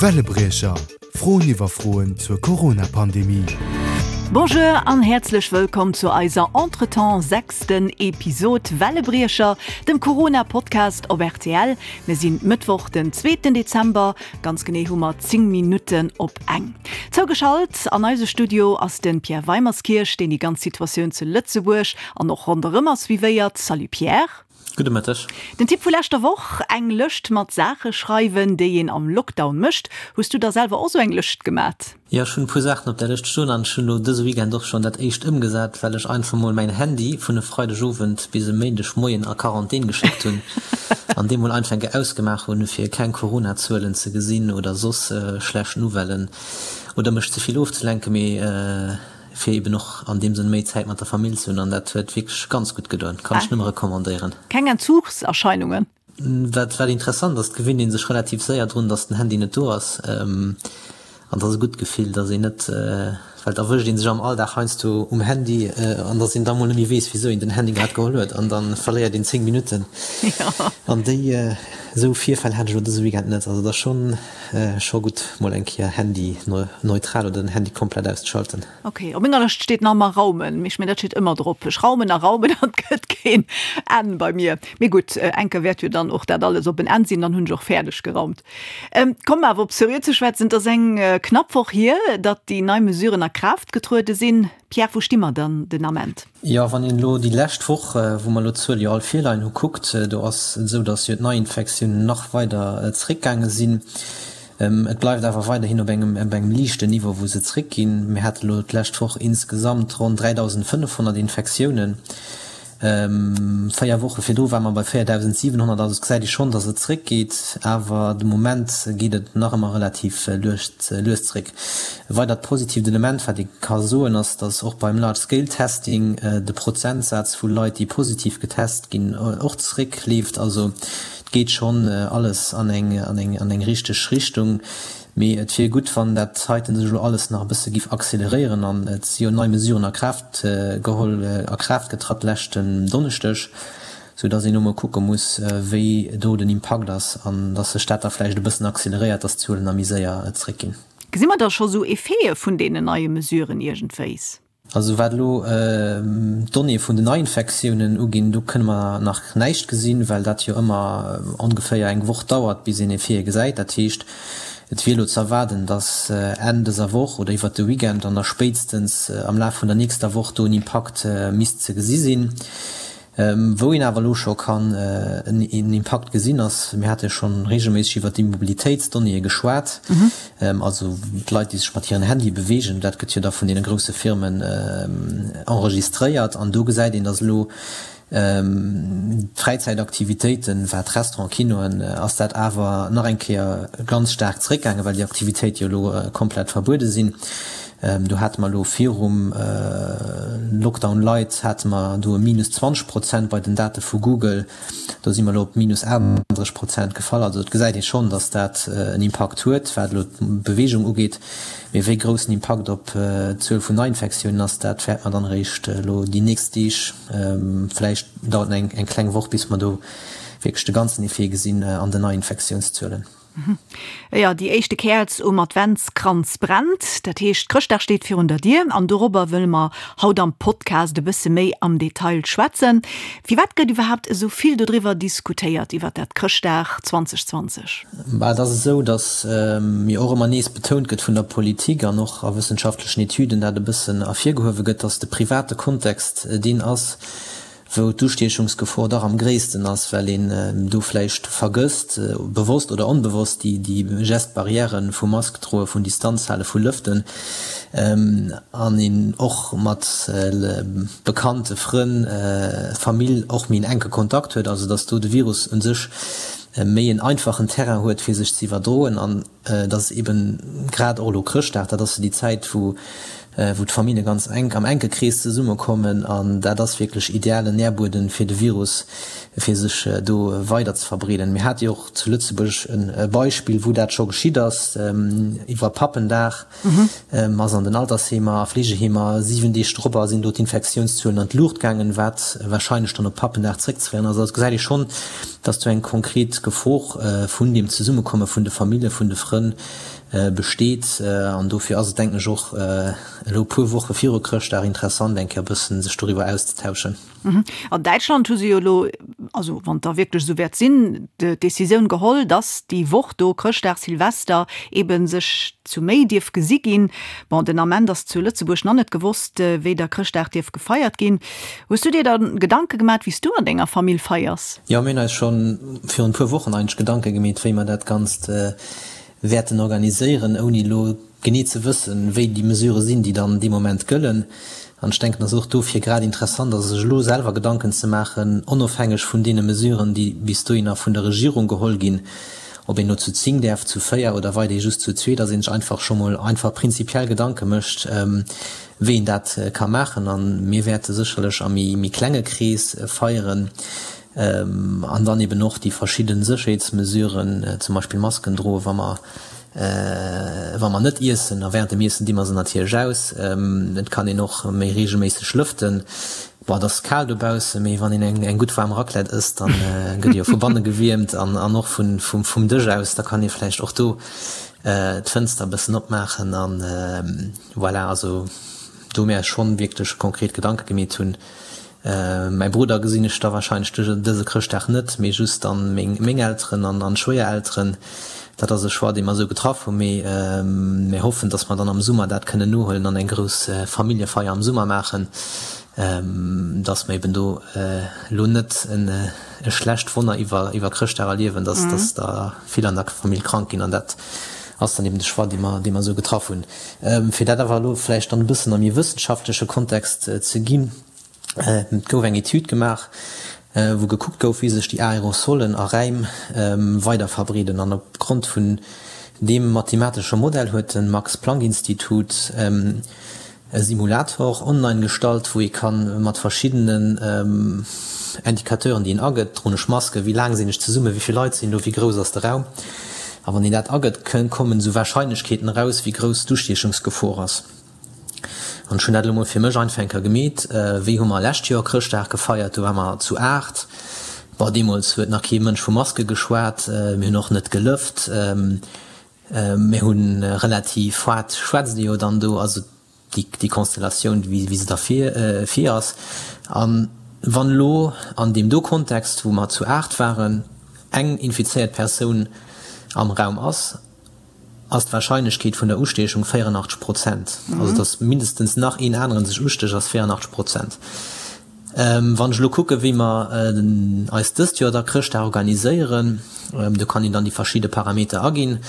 Wellebriecher, Froen iwwer Froen zur Corona-Pandemie. Bonjour an häerzlech wëllkomm zu eiser Entretemps sechsten Episod Wellebriecher, dem Corona-Podcast op rtl. Mir sinn Mëttwoch den zweeten Dezember, ganz genee hu mer 10 Minutten op eng. Zougeschalt an eise Studio ass de Pierre Weimerskirch, deen déi ganz Situatioun zu Lëtzebuerg an och ronderëm ass suivéiert. Salut Pierre. Gudde Mëtteg. Den Tipp vu leschter Woch, eng Lëscht mat Saache schreiwen, déi een am Lockdown mécht. Hues du der selwer och sou eng Lëscht gemat? Jo, ech hunn e puer Saachen op där Lëscht stoen an ech hunn elo dëse Weekend och schonn dat éischt ëmgesat, well ech einfach mol mäin Handy vun e Freideg Owend bis e Méindeg Moien a Quarantän geschéckt hunn an dee mol einfach eng Kéier ausgemaach hunn, fir keng Corona-Zuelen ze gesinn oder soss schlecht Nouvellen oder mech ze vill ofzelenken, mee. Fir eben och an deem Sënn méi Zäit mat der Famill ze hunn an dat huet wierklech ganz gutt gedoen. Kann ech nëmme recommandéieren. Keng Entzugserscheinungen? Wat wat interessant ass, et gewinnt ee sech relativ séier drun, dass den Handy net do ass an dat ass e gutt Gefill, dass een net, well et erwëscht ee sech am Alldag heiansdo um Handy an dass een da mol net méi weess, wisou een den Handy grad geholl huet an da verléiert een 10 Minutten an déi esou Virfäll hat ech elo dëse Weekend net. Also et ass schonn. Scho gutt mol eng Kéier Handy neutral oder den Handy komplett auszeschalten. Ok, op menger Lëscht steet nach emmer raumen, mee ech mengen dat steet ëmmer drop. Ech raumen a raumen an et gëtt keen Enn bei mir. Mee gutt, eng Kéier wäert jo dann och dat alles op en Enn sinn, dann hunn ech och fäerdeg geraumt. Komm awer op seriö ze schwätzen, et ass eng knapp Woch hier, datt déi nei Mesuren a Kraaft getruede sinn. Pierre, wou sti mer dann den Ament? Jo, wann een elo déi lescht Woch, wou mer elo d'Zuele jo all virleien hu kuckt, do ass et esou, datt jo d'Neiinfektiounen nach weider zeréckgaange sinn. Et bleift awer weiderhin op engem op engem liichten Niveau, wou se zeréckginn. Mir hate elo d'lescht Woch insgesamt ronn 3.500 Infektiounen. 4 Woche virdru ware mer bei 4.700, also et gesäit ee schonn, datt et zeréckgeet, awer de Moment geet et nach ëmmer relativ lues zeréck. E weidert positiivt Element, wat ee ka soen, ass, datt och beim Large Scale Testing de Prozentsaz vu Leit, déi positiv getest ginn, och zeréckleeft. Also et geet schonn alles an eng richteg Richtung. Mee et wier gutt, wann dat heiten sech elo alles nach e bësse giff acceleréieren. An et si jo nei Mesuren a Kraaft geholl, a Kraaft getratt leschten Donneschdeg, sou dass een elo mol kucke muss, wéi do den Impakt ass an dass sech dat da vläicht e bëssen acceleréiert, dass d'Zuelen da méi séier zréckginn. Gesi mer da scho sou Effete vun deenen neie Mesuren iergendwéis? Also wat elo d'Donnéeë vun den Neiinfektiounen uginn, do kënne mer nach näischt gesinn, well dat jo ëmmer ongeféier eng Woch dauert, bis een Effete gesäit. Dat heescht, et wier elo ze erwaarden, datt Enn dëser Woch oder iwwert de Weekend an da spéitstens am Laf vun der nächster Woch do en Impakt misst ze gesi sinn. Wou een awer elo scho kann en Impakt gesinn ass, mir hate jo scho reegelméisseg iwwert déi Mobilitéitsdonnéeë geschwat, also d'Leit, déi sech mat hiren Handye beweegen, dat gëtt jo da vun deene grousse Firmen enregistréiert an do gesäit een, datt elo d'Fräizäitaktivitéiten, wat Restaurant, Kinoen, ass dat awer nach eng Kéier ganz staark zeréckgaangen, well déi Aktivitéite jo elo komplett verbuede sinn. Do hate mer elo virum Lockdown light hate mer do e minus 20 Prozent bei den Date vu Google. Do si mer elo op minus 38 Prozent gefall. Also et gesäit ee schonn, datt dat en Impakt huet, wat elo d'Beweegung ugeet. Mee wéi grouss den Impakt op d'Zuel vun Neiinfektiounen ass, dat wäerte mer dann eréischt elo déi nächst Deeg, vläicht dauert et eng kleng Woch, bis mer do wierklech de ganzen Effet gesinn an den Neiinfektiounszuelen. Jo, déi éischte Käerz um Adventskranz brennt. Dat heescht, Chrëschtdag steet virun der Dier an dorobber wëlle mer haut am Podcast e bësse méi am Detail schwätzen. Firwat gëtt iwwerhaapt esou vill dodriwwer diskutéiert, iwwer dat Chrëschtdag 2020? Bah, et ass esou, datt jo och ëmmer nees betount gëtt vun der Politik an och a wëssenschaftlechen Etüden dat e bëssen ervirgehuewe gëtt, datt de private Kontext deen ass, wou d'Ustiechungsgefor dach am gréissten ass, well een do vläicht vergësst, bewosst oder onbewosst, déi Gestes barrières vu Mask droe, vun Distanz hale, vu lëften, an een och mat Bekannte, Frënn, Famill och méi en enke Kontakt huet, also datt do de Virus u sech méi en einfachen Terrain huet, fir sech ze iwwerdroen. An et ass eben grad och elo Chrëschtdag, dat ass jo déi Zäit, wou. wou d'Famillje ganz enk am enke Krees zesummekommen an dat ass wierklech idealen Nährbueden fir de Virus, fir sech do weider ze verbreeden. Mir hate jo och zu Lëtzebuerg e Beispill, wou dat scho geschitt ass, iwwer Pappendag ass an den Altersheemer a Fleegeheemer 7 Deeg dorobber sinn do d'Infektiounszuelen an d'Luucht gaangen, wat warscheinlech dann op Pappendag zréckzeféieren ass. Also gesäit ee schonn, dass do eng konkret Gefor vun deem Zesummekomme vun de Famillje, vun de Frënn besteet. An dofir ass et, denken ech, och elo e puer Woche viru Chrëschtdag interessant, eng Kéier e bëssen sech doriwwer auszetauschen. An Däitschland hu se jo elo, also wann et da wierklech esou wäert sinn, d'Decisioun geholl, datt déi Woch do, Chrëschtdag, Silvester, eebe sech zu méi dierf gesi ginn. Bon, den Ament ass zu Lëtzebuerg nach net gewosst, wéi da Chrëschtdag dierf gefeiert ginn. Hues du dir da Gedanke gemat, wéi s du an denger Famill feiers? Jo, mir hunn eis scho virun e puer Wochen eigentlech Gedanke gemeet, wéi mer dat Ganzt wäerten organiséieren, ouni elo genee ze wëssen, wéi déi Mesurë sinn, déi dann dee Moment gëllen. An ech denken, dass et och dofir grad interessant ass, sech elo selwer Gedanken ze maachen, onofhängeg vun deene Mesuren, déi bis dohinner vun der Regierung geholl ginn, ob een elo zu 10 däerf, zu 4 oder weiderhi just zu zwee, dass ee sech einfach scho mol einfach prinzipiell Gedanke mécht, wéi een dat ka maachen. A mir wäerte sécherlech am méi klenge Krees feieren. An dann eben och déi verschidde Sécherheetsmesuren, zum Beispill Masken droen, wa mer, wa mer net iessen. A während dem Iessen di mer se natierlech aus. Et kann een och méi reegelméisseg lëften. Bon, et ass kal dobaussen, mee wann een eng, eng gutt waarm Raclette ësst, dann gëtt ee jo vu banne gewiermt an, an och vun, vum, vum Dësch aus. Da kann ee vläicht och do d'Fënster e bëssen opmaachen an voilà. Also do mir eis schonn wierklech konkret Gedanke gemeet hunn. Mäi Brudder gesinn ech da wahrscheinlech dëse Chrëschtdag net, mee just dann meng Elteren an Schwéierelteren. Dat ass e Choix, dee mer esou getraff hunn, mee mir hoffen, dass mer dann am Summer dat kënnen nohuelen an eng grouss Familljefeier am Summer maachen, dass mer eben do elo net e schlecht Wonner iwwer Chrëschtdag erliewen, dass dass der vill an der Famill krank ginn. An dat ass dann eben de Choix, dee mer dee mer esou getraff hunn. Fir dat awer elo vläicht dann e bëssen am méi wëssenschaftleche Kontext ze ginn, Et gouf eng Etüd gemaach, wou gekuckt gouf, wéi sech déi Aerosolen a Räim weider verbreeden. An op Grond vun deem mathematesche Modell huet de Max-Planck-Institut e Simulator online gestallt, wou ee ka mat verschiddenen Indicateuren, déi een agëtt, droen ech Maske, wéi laang sinn ech zesummen, wéi vill Leit sinn do, wéi grouss ass de Raum, a wann een dat agëtt, kommen esou Warscheinlechkeeten eraus, wéi grouss d'Ustiechungsgefor ass. An ech hunn dat elo mol fir mech einfach eng Kéier gemeet. Wéi hu mer lescht Joer Chrëschtdag gefeiert? Do ware mer zu 8. Bon, deemools huet nach kee Mënsch vu Maske geschwat. Mir hunn och net gelëft. Mir hu relativ haart, schwätzt ee jo dann do, also déi Konstellatioun, wéi se da vir vir ass. A wann elo an deem do Kontext, wou mer zu 8 waren, eng infizéiert Persoun am Raum ass, ass d'Warscheinlechkeet vun der Ustiechung 84 Prozent. Also datt mindestens nach een aneren sech ustécht ass 84 Prozent. Wann ech elo kucke wéi mer eis dëst Joer da Chrëschtdag organiséieren, do kann een dann déi verschidde Parameter aginn,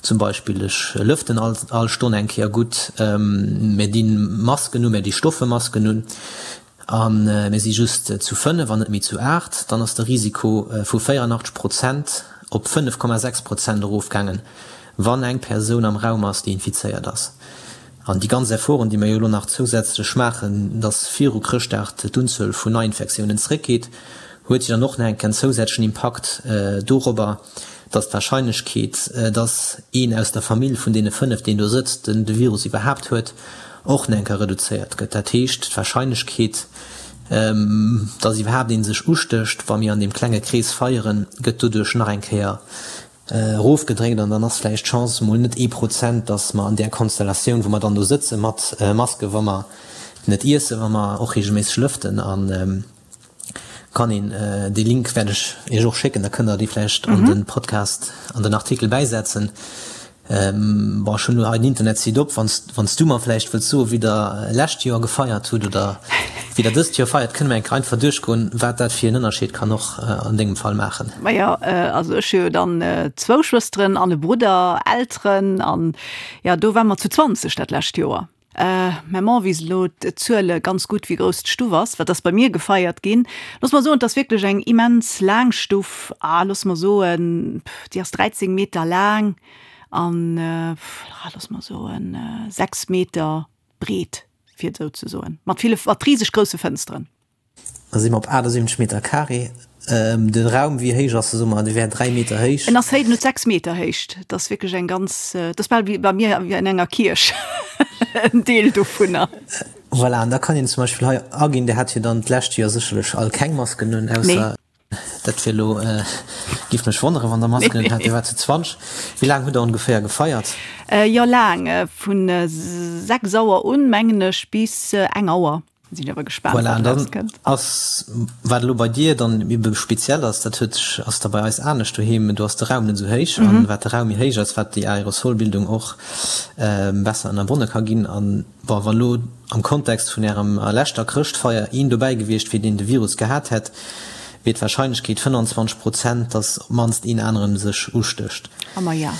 zum Beispill ech lëften all all Stonn eng Kéier gutt, mir di Masken un, mir di stoffe Masken un, A mir si just zu 5 an net méi zu 8, dann ass de Risiko vu 84 Prozent op 5,6 Prozent erofgaangen, wann eng Persoun am Raum ass, déi infizéiert ass. An déi ganz Efforten, déi mir jo elo nach zousätzlech maachen, dass viru Chrëschtdag d'Unzuel vun Neiinfektiounen zréckgeet, huet jo dann och nach eng Kéier en zousätzlechen Impakt dorobber, dass d'Warscheinlechkeet, dass een aus der Famill vun deene 5, deen do sëtzt, de Virus iwwerhaapt huet, och nach eng Kéier reduzéiert gëtt. Dat heescht, d'Warscheinlechkeet, dass iwwerhaapt ee sech ustécht, wa mir an deem klenge Krees feieren, gëtt doduerch nach eng Kéier erofgedréckt. An dann ass vläicht d'Chance emol net ee Prozent, dass mer an där Konstellatioun, wou mer dann do sëtze mat Maske, wa mer net iessen, wa mer och reegelméisseg lëften a Kann een, dee Link wäert ech Iech och schécken, da kënnt der dee vläicht an de Podcast, an den Artikel bäisetzen. Bon, ech hunn elo hei den Internetsite op, wann s du mer vläicht wëlls soen, wéi der lescht Joer gefeiert hutt oder wéi der dëst Joer feiert, kënne mer eng Kéier einfach duerchgoen, wat dat fir en Ënnerscheed kann och an dengem Fall maachen. Majo, also ech hu jo dann zwou Schwësteren an e Brudder, Elteren an jo, do ware mer zu 20 dat lescht Joer. Mäi Mann weess elo d'Zuele ganz gutt, wéi grouss d'Stuff ass, wat ass bei mir gefeiert ginn. Looss mer soen, et ass wierklech eng immens laang Stuff, ah, looss mer soen, déi ass 13 Meter laang an, ah, looss mer soen, 6 Meter. breet, fir et esou ze soen, mat ville, mat riseg grousse Fënsteren. Da si mer op 78 Meter carré. De Raum, wéi héich ass e? Soe mer, dee wär 3 Meter héich. En ass héich, en huet 6 Meter Héicht. Et ass wierklech eng ganz, et ass bal wéi bei mir wéi an enger Kierch, en Deel dovunner. Voilà, an da kann een zum Beispill hei aginn, Dir hat jo dann d'lescht Joer sécherlech all keng Masken un, ausser. Nee. Dat wier elo, géif mech wonneren, wann Der Masken un hat. Dir waart zu 20. Wéi laang hutt Der ongeféier gefeiert? Jo, laang, vu 6 Auer un, mengen ech, bis eng Auer. Sinn awer gespaant, Voilà, an wat dann erauskënnt. ass, wat elo bei dir dann ebe speziell ass, dat huet sech, ass da bei eis anescht doheem, do ass de Raum net esou héich an wat de Raum méi héich ass, wat déi Aerosolbildung och besser ënnerbonne ka ginn. An bon, wa lo am Kontext vun ärem leschter Chrëschtfeier een dobäi gewiescht wier, deen de Virus gehat hätt, wier d'Warscheinlechkeet 25 Prozent, datt op d'mannst een aneren sech ustécht. A ma ja.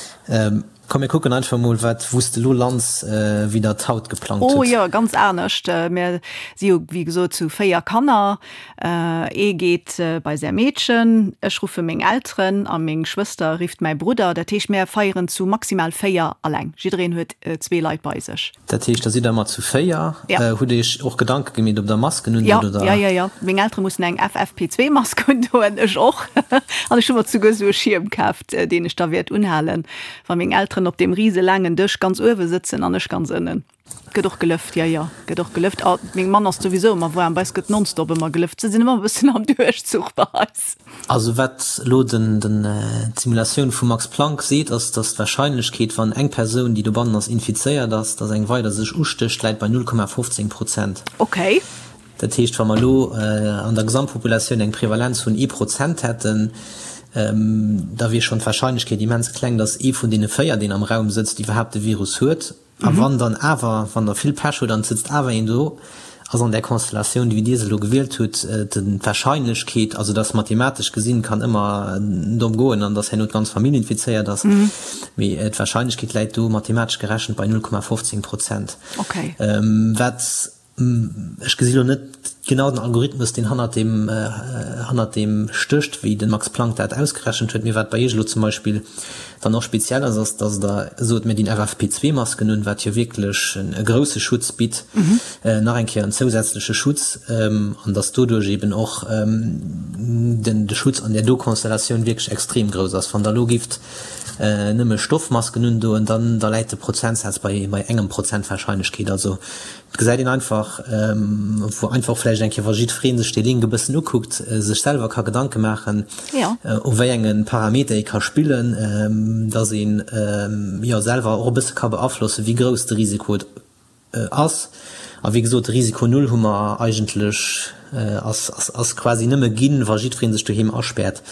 Komm mir kucken einfach mol wat wous de lo lands, wéi der et haut geplangt hutt. Oh jo, ganz anescht. Mir si jo wéi gesot zu 4 Kanner. Ee geet bei säi Meedchen, ech ruffe meng Elteren a meng Schwëster rifft mäi Brudder. Dat heescht mär feieren zu maximal 4 alleng. Jiddereen huet zwee Leit bei sech. Dat heescht da sidd der ëmmer zu 4. Ja. Hutt Iech och Gedanke gemeet ob der Masken unhutt oder? Jo, jo, jo. Meng Eltere mussen eng FFP2 Mask undoen, ech och. An ech hu mer souguer esou e Schierm kaaft, deen ech da wäert unhalen, wa meng Elteren op deem rise laangen Dësch ganz uewe sëtzen an ech ganz ënnen. Gëtt och gelëft, jo, jo, gëtt och gelëft. A meng Mann ass souwisou ëmmer waarm, bei eis gëtt nonstop ëmmer gelëft. Se sinn ëmmer e bëssen am Duerchzuch bei eis. Also wat elo den d'Simulatioun vum Max Planck seet, ass, datt d'Warscheinlechkeet, wann eng Persoun, déi dobannen ass, infizéiert ass, datt eng weider sech ustécht, läit bei 0,15 Prozent. Okay. Dat heescht, wa mer elo an der Gesamtpopulatioun eng Prevalenz vun ee Prozent hätten, da wier schonn d'Warscheinlechkeet immens kleng, datt ee vun deene 4, deen am Raum sëtzt, iwwerhaapt de Virus huet. A wann dann awer, wann Der vill Pech hutt an et sëtzt awer een do, ass an där Konstellatioun, wéi Dir se elo gewielt hutt, d'Wahrscheinlechkeet, also dass mathematesch gesinn, kann ëmmer domm goen an dass herno d'ganz Famill infizéiert ass, mee d'Wahrscheinlechkeet läit do mathematesch gerechent bei 0,15 Prozent. Wat Ech gesi lo net genau den Algorithmus, deen hannert deem, hannert deem stécht, wéi de Max Planck dat ausgerechent huet. Mee wat bei Iech elo zum Beispill dann och speziell ass, ass, datt Der sot, mir dinn FFP2-Masken un, wat jo wierklech e grousse Schutz bitt, nach eng Kéier en zousätzleche Schutz, an datt doduerch eeben och den, de Schutz an där do Konstellatioun wierklech extrem grouss ass. Wann Der elo gifft nëmme Stoffmasken undoen, dann, da läit de Prozentsaz bei, bei engem Prozent Warscheinlechkeet. Also Et gesäit een einfach, wou einfach vläicht eng Kéier, wa jiddweree sech dee Link e bëssen ukuckt, sech selwer ka Gedanke maachen, u wéi enge Parameter ee ka spillen, dass een, jo, selwer och e bësse ka beaflossen, wéi grouss de Risiko ass. A wéi gesot, de Risiko null hu mer eigentlech, ass, ass quasi nëmme ginn, wa jiddweree sech doheem aspäert.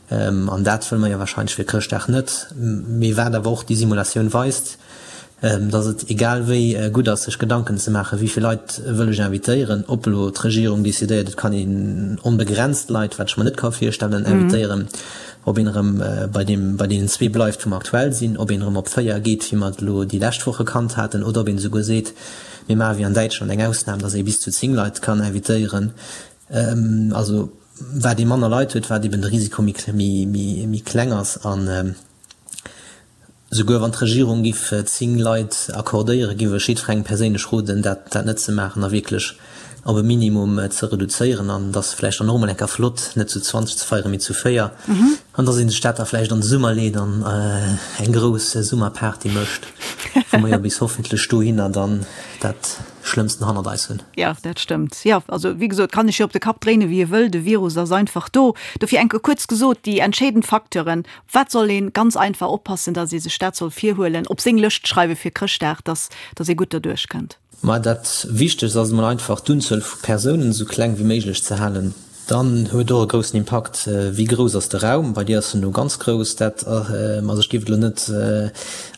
An dat wëlle mer jo wahrscheinlech fir Chrëschtdag net. Mee wat awer och déi Simulatioun weist, dass et egal wéi gutt ass, sech Gedanken ze maachen, wéi vill Leit wëll ech invitéieren, ob elo d'Regierung decidéiert, et kann een onbegrenzt Leit, wat ech mer net ka virstellen, invitéieren, ob een erëm bei deem, bei deenen zwee bleift, wou mer aktuell sinn, ob een erëm op 4 geet, wéi mer et elo déi lescht Woche kannt haten, oder ob een esouguer seet, mir maache wéi an Däitschland eng Ausnam, dass ee bis zu 10 Leit kann invitéieren. Also wat ee manner Leit huet, wat eben de Risiko méi kleng ass. An souguer wann d'Regierung giff 10 Leit accordéieren, giff ech jiddwerengem perséinlech roden, dat net ze maachen a wierklech op e Minimum ze reduzéieren. An et ass vläicht dann och emol eng Kéier flott, net zu 20 ze feieren, mee zu 4. An dass ee sech dat da vläicht an de Summer leet an eng grouss Summerparty mécht, wou mer jo bis hoffentlech dohinner dann dat Schlëmmsten hannert eis hunn. Jo, dat stëmmt. Jo, also wéi gesot, kann ech jo op de Kapp dréinen, wéi e wëll, de Virus ass einfach do. Dofir enke kuerz gesot, déi entscheedend Facteuren, op wat soll ee ganz einfach oppassen, datt ee sech dat soll virhuelen, op seng Lëscht schreiwe fir Chrëschtdag, datt datt ee gutt derduerch kënnt? Ma dat Wichtegst ass emol einfach, d'Unzuel vu Persounen esou kleng wéi méiglech ze halen. Dann huet och e groussen Impakt, wéi grouss ass de Raum. Bei dir ass en elo ganz grouss. Dat, also ech géif et elo net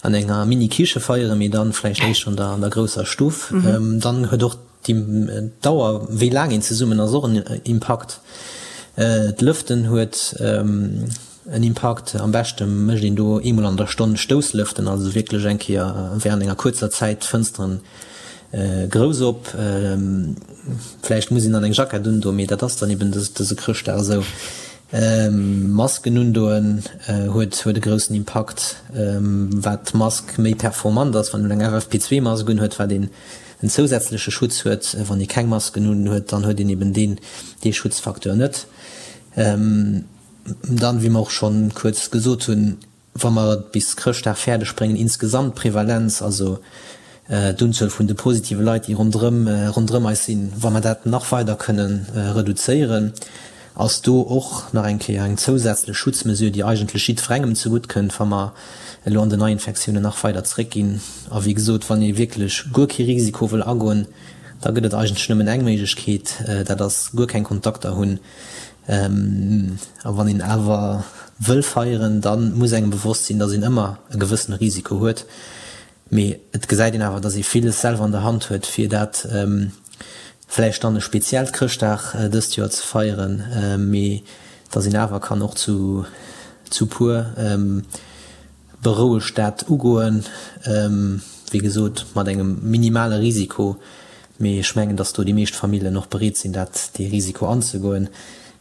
an enger Mini-Kiche feieren, mee dann vläicht éischter an der, an der grousser Stuff. Dann huet och d'Dauer, wéi laang een zesummen ass, och en Impakt. D'Lëften huet en Impakt. Am beschte mécht een do eemol an der Stonn Stousslëften, also wierklech eng Kéier während enger kuerzer Zäit d'Fënsteren grouss op. Vläicht muss een dann eng Jackett undoen, mee dat ass dann eben dëse Chrëschtdag esou. Masken undoen huet huet e groussen Impakt. Wat d'Mask méi performant ass, wann een eng FFP2-Mask unhuet, wat een. en zousätzleche Schutz huet. Wann ee keng Masken un huet, dann huet een eben deen, dee Schutzfacteur net. Dann, wéi mer och scho kuerz gesot hunn, wa mer et bis Chrëschtdag fäerdeg bréngen, insgesamt d'Prevalenz, also d'Unzuel vun de positive Leit, déi ronderëm, ronderëm eis sinn, wa mer dat nach weider kënnen reduzéieren, ass do och nach eng Kéier eng zousätzlech Schutzmesure, déi eigentlech jiddwerengem zegutt kënnt, wa mer elo an den Neiinfektiounen nach weider zréckginn. A wéi gesot, wann ee wierklech guer kee Risiko wëll agoen, da gëtt et eigentlech nëmmen eng Méiglechkeet, dat ass guer keng Kontakter hunn. A wann een awer wëll feieren, da muss engem bewosst sinn, datt een ëmmer e gewëssene Risiko huet. Mee et gesäit een awer, datt ee villes selwer an der Hand huet, fir dat vläicht dann e speziellt Chrëschtdag dëst Joer ze feieren, mee datt een awer kann och zu zu puer berouegt dat ugoen, wéi gesot mat engem minimale Risiko. Mee ech mengen, datt do déi meescht Famillen och bereet sinn, dat dee Risiko anzegoen.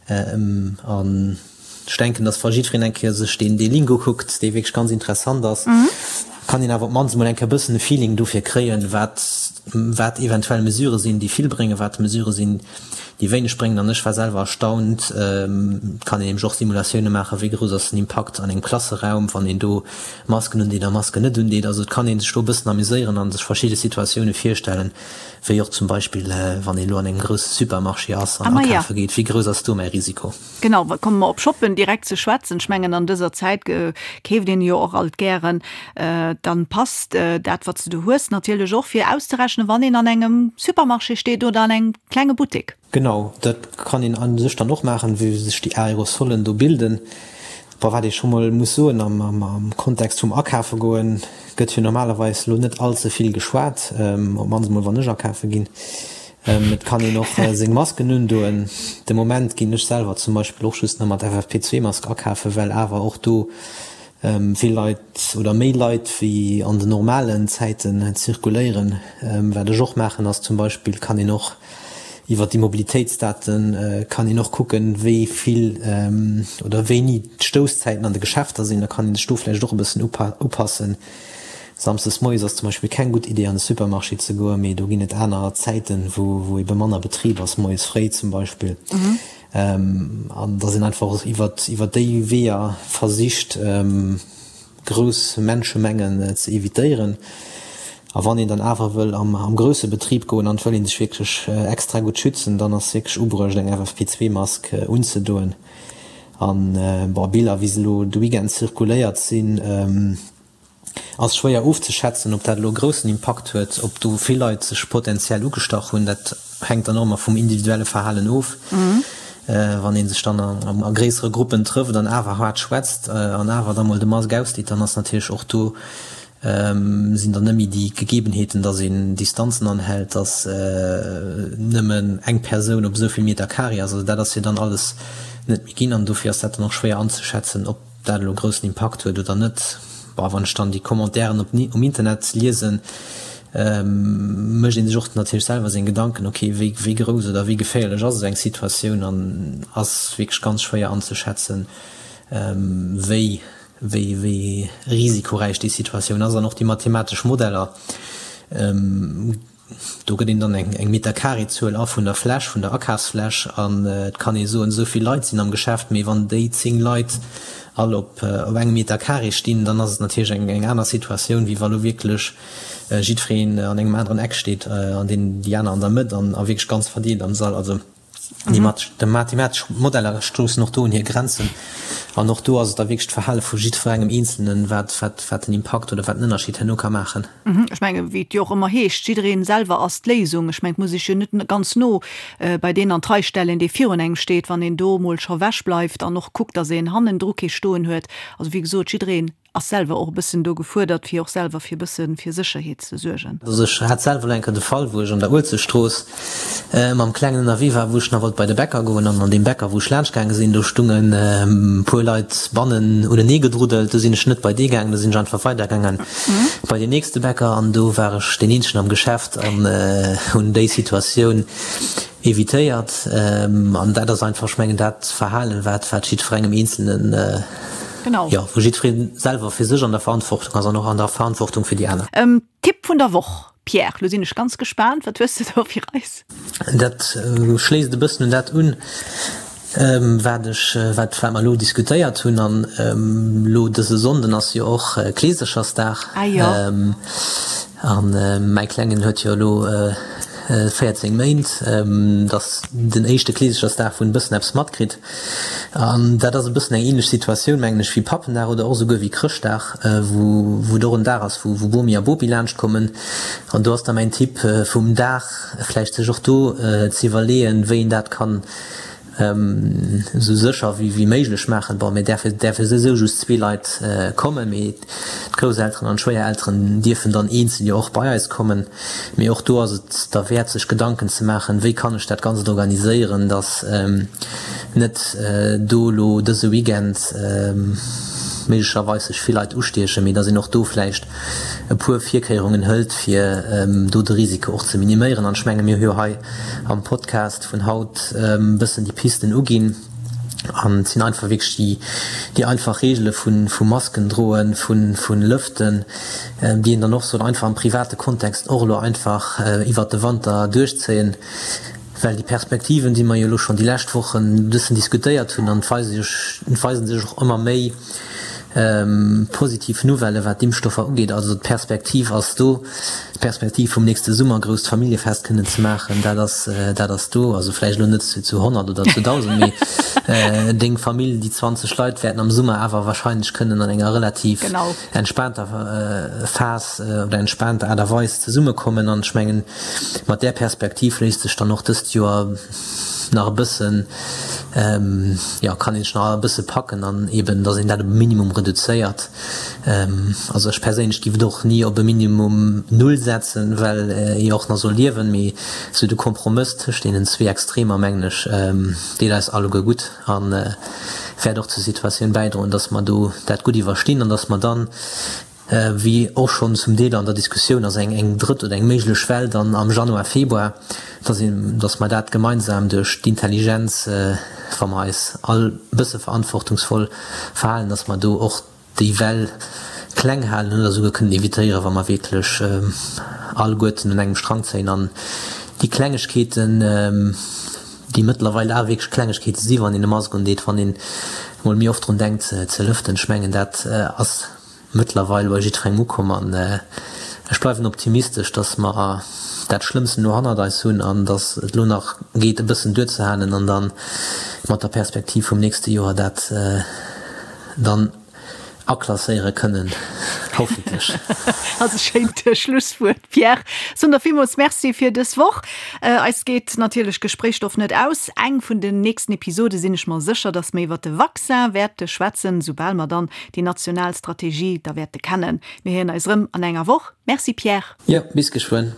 An ech denken, dass wa jiddwereen eng Kéier sech deen dee Link ukuckt, dee wierklech ganz interessant ass, kann een awer op d'mannst emol eng Kéier e bëssen e Feeling dofir kréien, wat wat eventuell Mesurë sinn, déi vill bréngen, wat Mesurë sinn, déi wéineg bréngen. An ech war selwer erstaunt, et kann een nämlech och Simulatioune maachen, wéi grouss ass den Impakt an engem Klasseraum, wann een do Masken undeet a Masken net undeet. Also et kann ee sech do e bëssen amuséieren a sech verschidde Situatioune virstellen. Wéi och zum Beispill, wann een elo an engem grousse Supermarché ass an akafe geet, wéi grouss ass do mäi Risiko? Genau, komme mer op Shoppen direkt ze schwätzen. Ech mengen, an dëser Zäit keeft een jo och alt gären. Dann passt dat, wat s de do hues, natierlech och fir auszerechnen, wann een an engem Supermarché steet oder an engem klenge Buttek. Genau, dat kann een a sech dann och maachen, wéi sech déi Aerosolen do bilden. Bon, wat ee scho mol muss soen, am Kontext vum Akafe goen, gëtt jo normalerweis elo net all ze vill geschwat, op d'mannst emol wann ech akafe ginn. Et kann een och seng Masken undoen. De Moment ginn ech selwer zum Beispill och just nach mat FFP2-Mask akafen, well awer och do vill Leit oder méi Leit wéi an den normalen Zäiten zirkuléieren. Wat ech och maachen ass zum Beispill, kann een och iwwer déi Mobilitéitsdate kann een och kucken, wéi vill oder wéini d'Stousszäiten an de Geschäfter sinn. Da kann ee sech do vläicht och e bëssen upassen. Samsdes moies ass zum Beispill keng gutt Idee an de Supermarché ze goen, mee do ginn et aner Zäiten, wou ebe manner Betrib ass, moies fréi zum Beispill. An dass een einfach och iwwer déi Weeër versicht, grouss Menschemengen ze evitéieren. A wann een dann awer wëll am grousse Betrib goen an et wëll ee sech wierklech extra gutt schützen, dann ass wierklech ubruecht eng FFP2-Mask unzedoen. An bon, Biller wéi se elo de Weekend zirkuléiert sinn, Ass schwéier ofzeschätzen, ob dat elo e groussen Impakt huet, ob do vill Leit sech potenziell ugestach hunn. Dat hänkt dann och ëmmer vum individuelle Verhalen of. Wann ee sech dann a gréissere Gruppen trëfft an awer haart schwätzt an awer da mol de Mask ausdeet, dann ass natierlech och do sinn dann net méi déi Gegebenheeten, datt een Distanzen anhält, datt nëmmen eng Persoun op esou vill Meter Carré ass. Also dat ass jo dann alles net méi ginn an dofir ass dat dann och schwéier anzeschätzen, ob dat elo groussen Impakt huet oder net, bon, wann ech dann déi Commentairen op um Internet liesen, mécht ee sech och natierlech selwer seng Gedanken, ok, wéi wéi grouss oder wéi geféierlech ass esou eng Situatioun an ass wierklech ganz schwéier anzeschätzen, wéi wéi wéi risikoräich déi Situatioun ass an och déi mathematesch Modeller. Do gëtt een dann eng Meterkarezuel a vun der Fläch, vun der Akafsfläch an et kann ee soen, esou vill Leit sinn am Geschäft, mee wann déi 10 Leit all op engem Meterkare stinn, dann ass et natierlech eng aner Situatioun, wéi wa lo wierklech jiddwereen an engem aneren Eck steet an deen déi aner an der Mëtt an a wierklech ganz verdeelt am Sall. Also déi mathematesch Modeller stoussen och do un hir Grenzen an och do ass et da wierklech d'Verhale vu jiddwerengem Eenzelnen, wat wat den Impakt oder wat den Ënnerscheed herno ka maachen. Ech mengen, wéi et jo och ëmmer heescht, jiddereen selwer ass d'Léisung. Ech mengen, et muss ee sech jo net ganz no bei deen an d'Rei stellen, dee virun engem steet, wann een do emol scho ewech bleift an och kuckt, datt een hannendru kee stoen huet. Also wéi gesot, jiddereen ass selwer och e bëssen do gefuerdert, fir och selwer fir e bësse fir Sécherheet ze suergen. Also ech hat selwer elo eng Kéier de Fall, wou ech an der Uelzechtstrooss mam Klengen ënnerwee war, wou ech nach wollt bei de Bäcker goen an an deem Bäcker, wou ech laanscht gaange sinn, do stungen e puer Leit bannen unenee gedruddelt. Do sinn ech net bei dee gaangen, do sinn ech einfach weidergaangen bei deen nächste Bäcker an do war ech deen eenzegen am Geschäft an hunn déi Situatioun evitéiert. An dat ass einfach, ech mengen, dat Verhalen, wat wat jiddwerengem Eenzelnen, Genau. jo, wou jiddweree selwer fir sech an der Verantwortung ass an och an der Verantwortung fir déi aner. Tipp vun der Woch. Pierre, lo sinn ech ganz gespaant, wat hues de do fir eis? Dat schléisst e bëssen un dat un, wat ech, wat wat mer elo diskutéiert hunn. An elo dëse Sonnden ass jo och Kleeserchersdag. Ah jo. An mäi Klengen huet jo elo 14 Méint. Dat ass den éischte Kleeserchersdag, wou en e bëssen eppes matkritt. An dat ass e bëssen eng ähnlech Situatioun, mengen ech, wéi Pappendag oder och esouguer wéi Chrëschtdag, wou wou et och en Dag ass, wou wou Bomi a Bopi laanscht kommen. An do ass da mäin Tipp vum Dag, vläicht sech och do ze iwwerleeën, wéi een dat kann esou sécher wéi wéi méiglech maachen. Bon, mir däerfe däerfe souwisou just zwee Leit kommen, mee d'Grousselteren an d'Schwéierelteren dierfen dann eenzel jo och bei eis kommen. Mee och do ass et derwäert sech Gedanken ze maachen, wéi kann ech dat Ganzt organiséieren, datt net do elo dëse Weekend méiglecherweis sech vill Leit ustiechen, mee datt een och do vläicht e puer Virkéierungen hëlt, fir do de Risiko och ze miniméieren. An ech menge mir hu jo hei am Podcast vun haut e bëssen déi Pisten uginn. An et sinn einfach wierklech déi, déi einfach Reegele vu, vu Masken droen, vu, vu lëften, déi een dann och soll einfach am private Kontext och elo einfach iwwert de Wanter duerchzéien. Well déi Perspektiven, déi mer jo elo schonn déi lescht Wochen e bëssen diskutéiert hunn, an et weise sech, et weise sech och ëmmer méi positiv Nouvellen, wat d'Impfstoffer ugeet. Also d'Perspektiv ass do. D'Perspektiv vum nächste Summer grousst Familljefest kënnen ze maachen, dat ass, dat ass do. Also vläicht elo net zu 100 oder zu 1.000, mee deng Famill, déi 20 Leit wäerten am Summer awer wahrscheinlech kënnen an enger relativ entspaanter Phas oder entspaanter Aart a Weis zesummekommen. An ech mengen, mat där Perspektiv léisst sech dann och dëst Joer nach e bëssen, jo, kann een sech nach e bësse packen an eeben, datt een dat op e Minimum reduzéiert. Also ech perséinlech giff et och ni op e Minimum Null setzen, well ee jo och nach soll liewen, mee sou de Kompromëss tëscht deenen zwee Extremer, mengen ech, deet eis alleguer gutt a wäert och zur Situatioun bäidroen, dass mer do dat gutt iwwerstinn an dass mer dann, wéi och schonn zum Deel an der Diskussioun ass, eng eng drëtt oder eng méiglech Well dann am Januar, Februar, dass een, dass mer dat gemeinsam duerch d'Intelligenz, wa mer eis all e bësse verantwortungsvoll verhalen, dass mer do och déi Well kleng halen oder esouguer kënnen evitéieren, wa mer wierklech alleguerten un engem Strang zéien an déi Klengegkeeten, déi mëttlerweil awer wierklech Klengegkeete si wann een e Mask undeet, wann een emol méi oft drun denkt ze lëften, ech mengen dat ass mëttlerweil bei jiddwerengem ukomm an ech bleiwen optimistesch, dass mer dat Schlëmmsten elo hannert eis hunn an dass et elo nach geet e bëssen duerzehalen an dann mat der Perspektiv vum nächste Joer dat dann aklasséiere kënnen, hoffentlech. Ass e schéint Schlusswuert, Pierre. Soen der villmools Merci fir dës Woch. Eis geet natierlech Gespréichsstoff net aus. Eng vun den nächsten Episode sinn ech mer sécher, dass mer iwwert de Vaccin wäerte schwätzen, soubal mer dann déi national Strategie da wäerte kennen. Mir héieren eis erëm an enger Woch. Merci Pierre. Jo, bis geschwënn.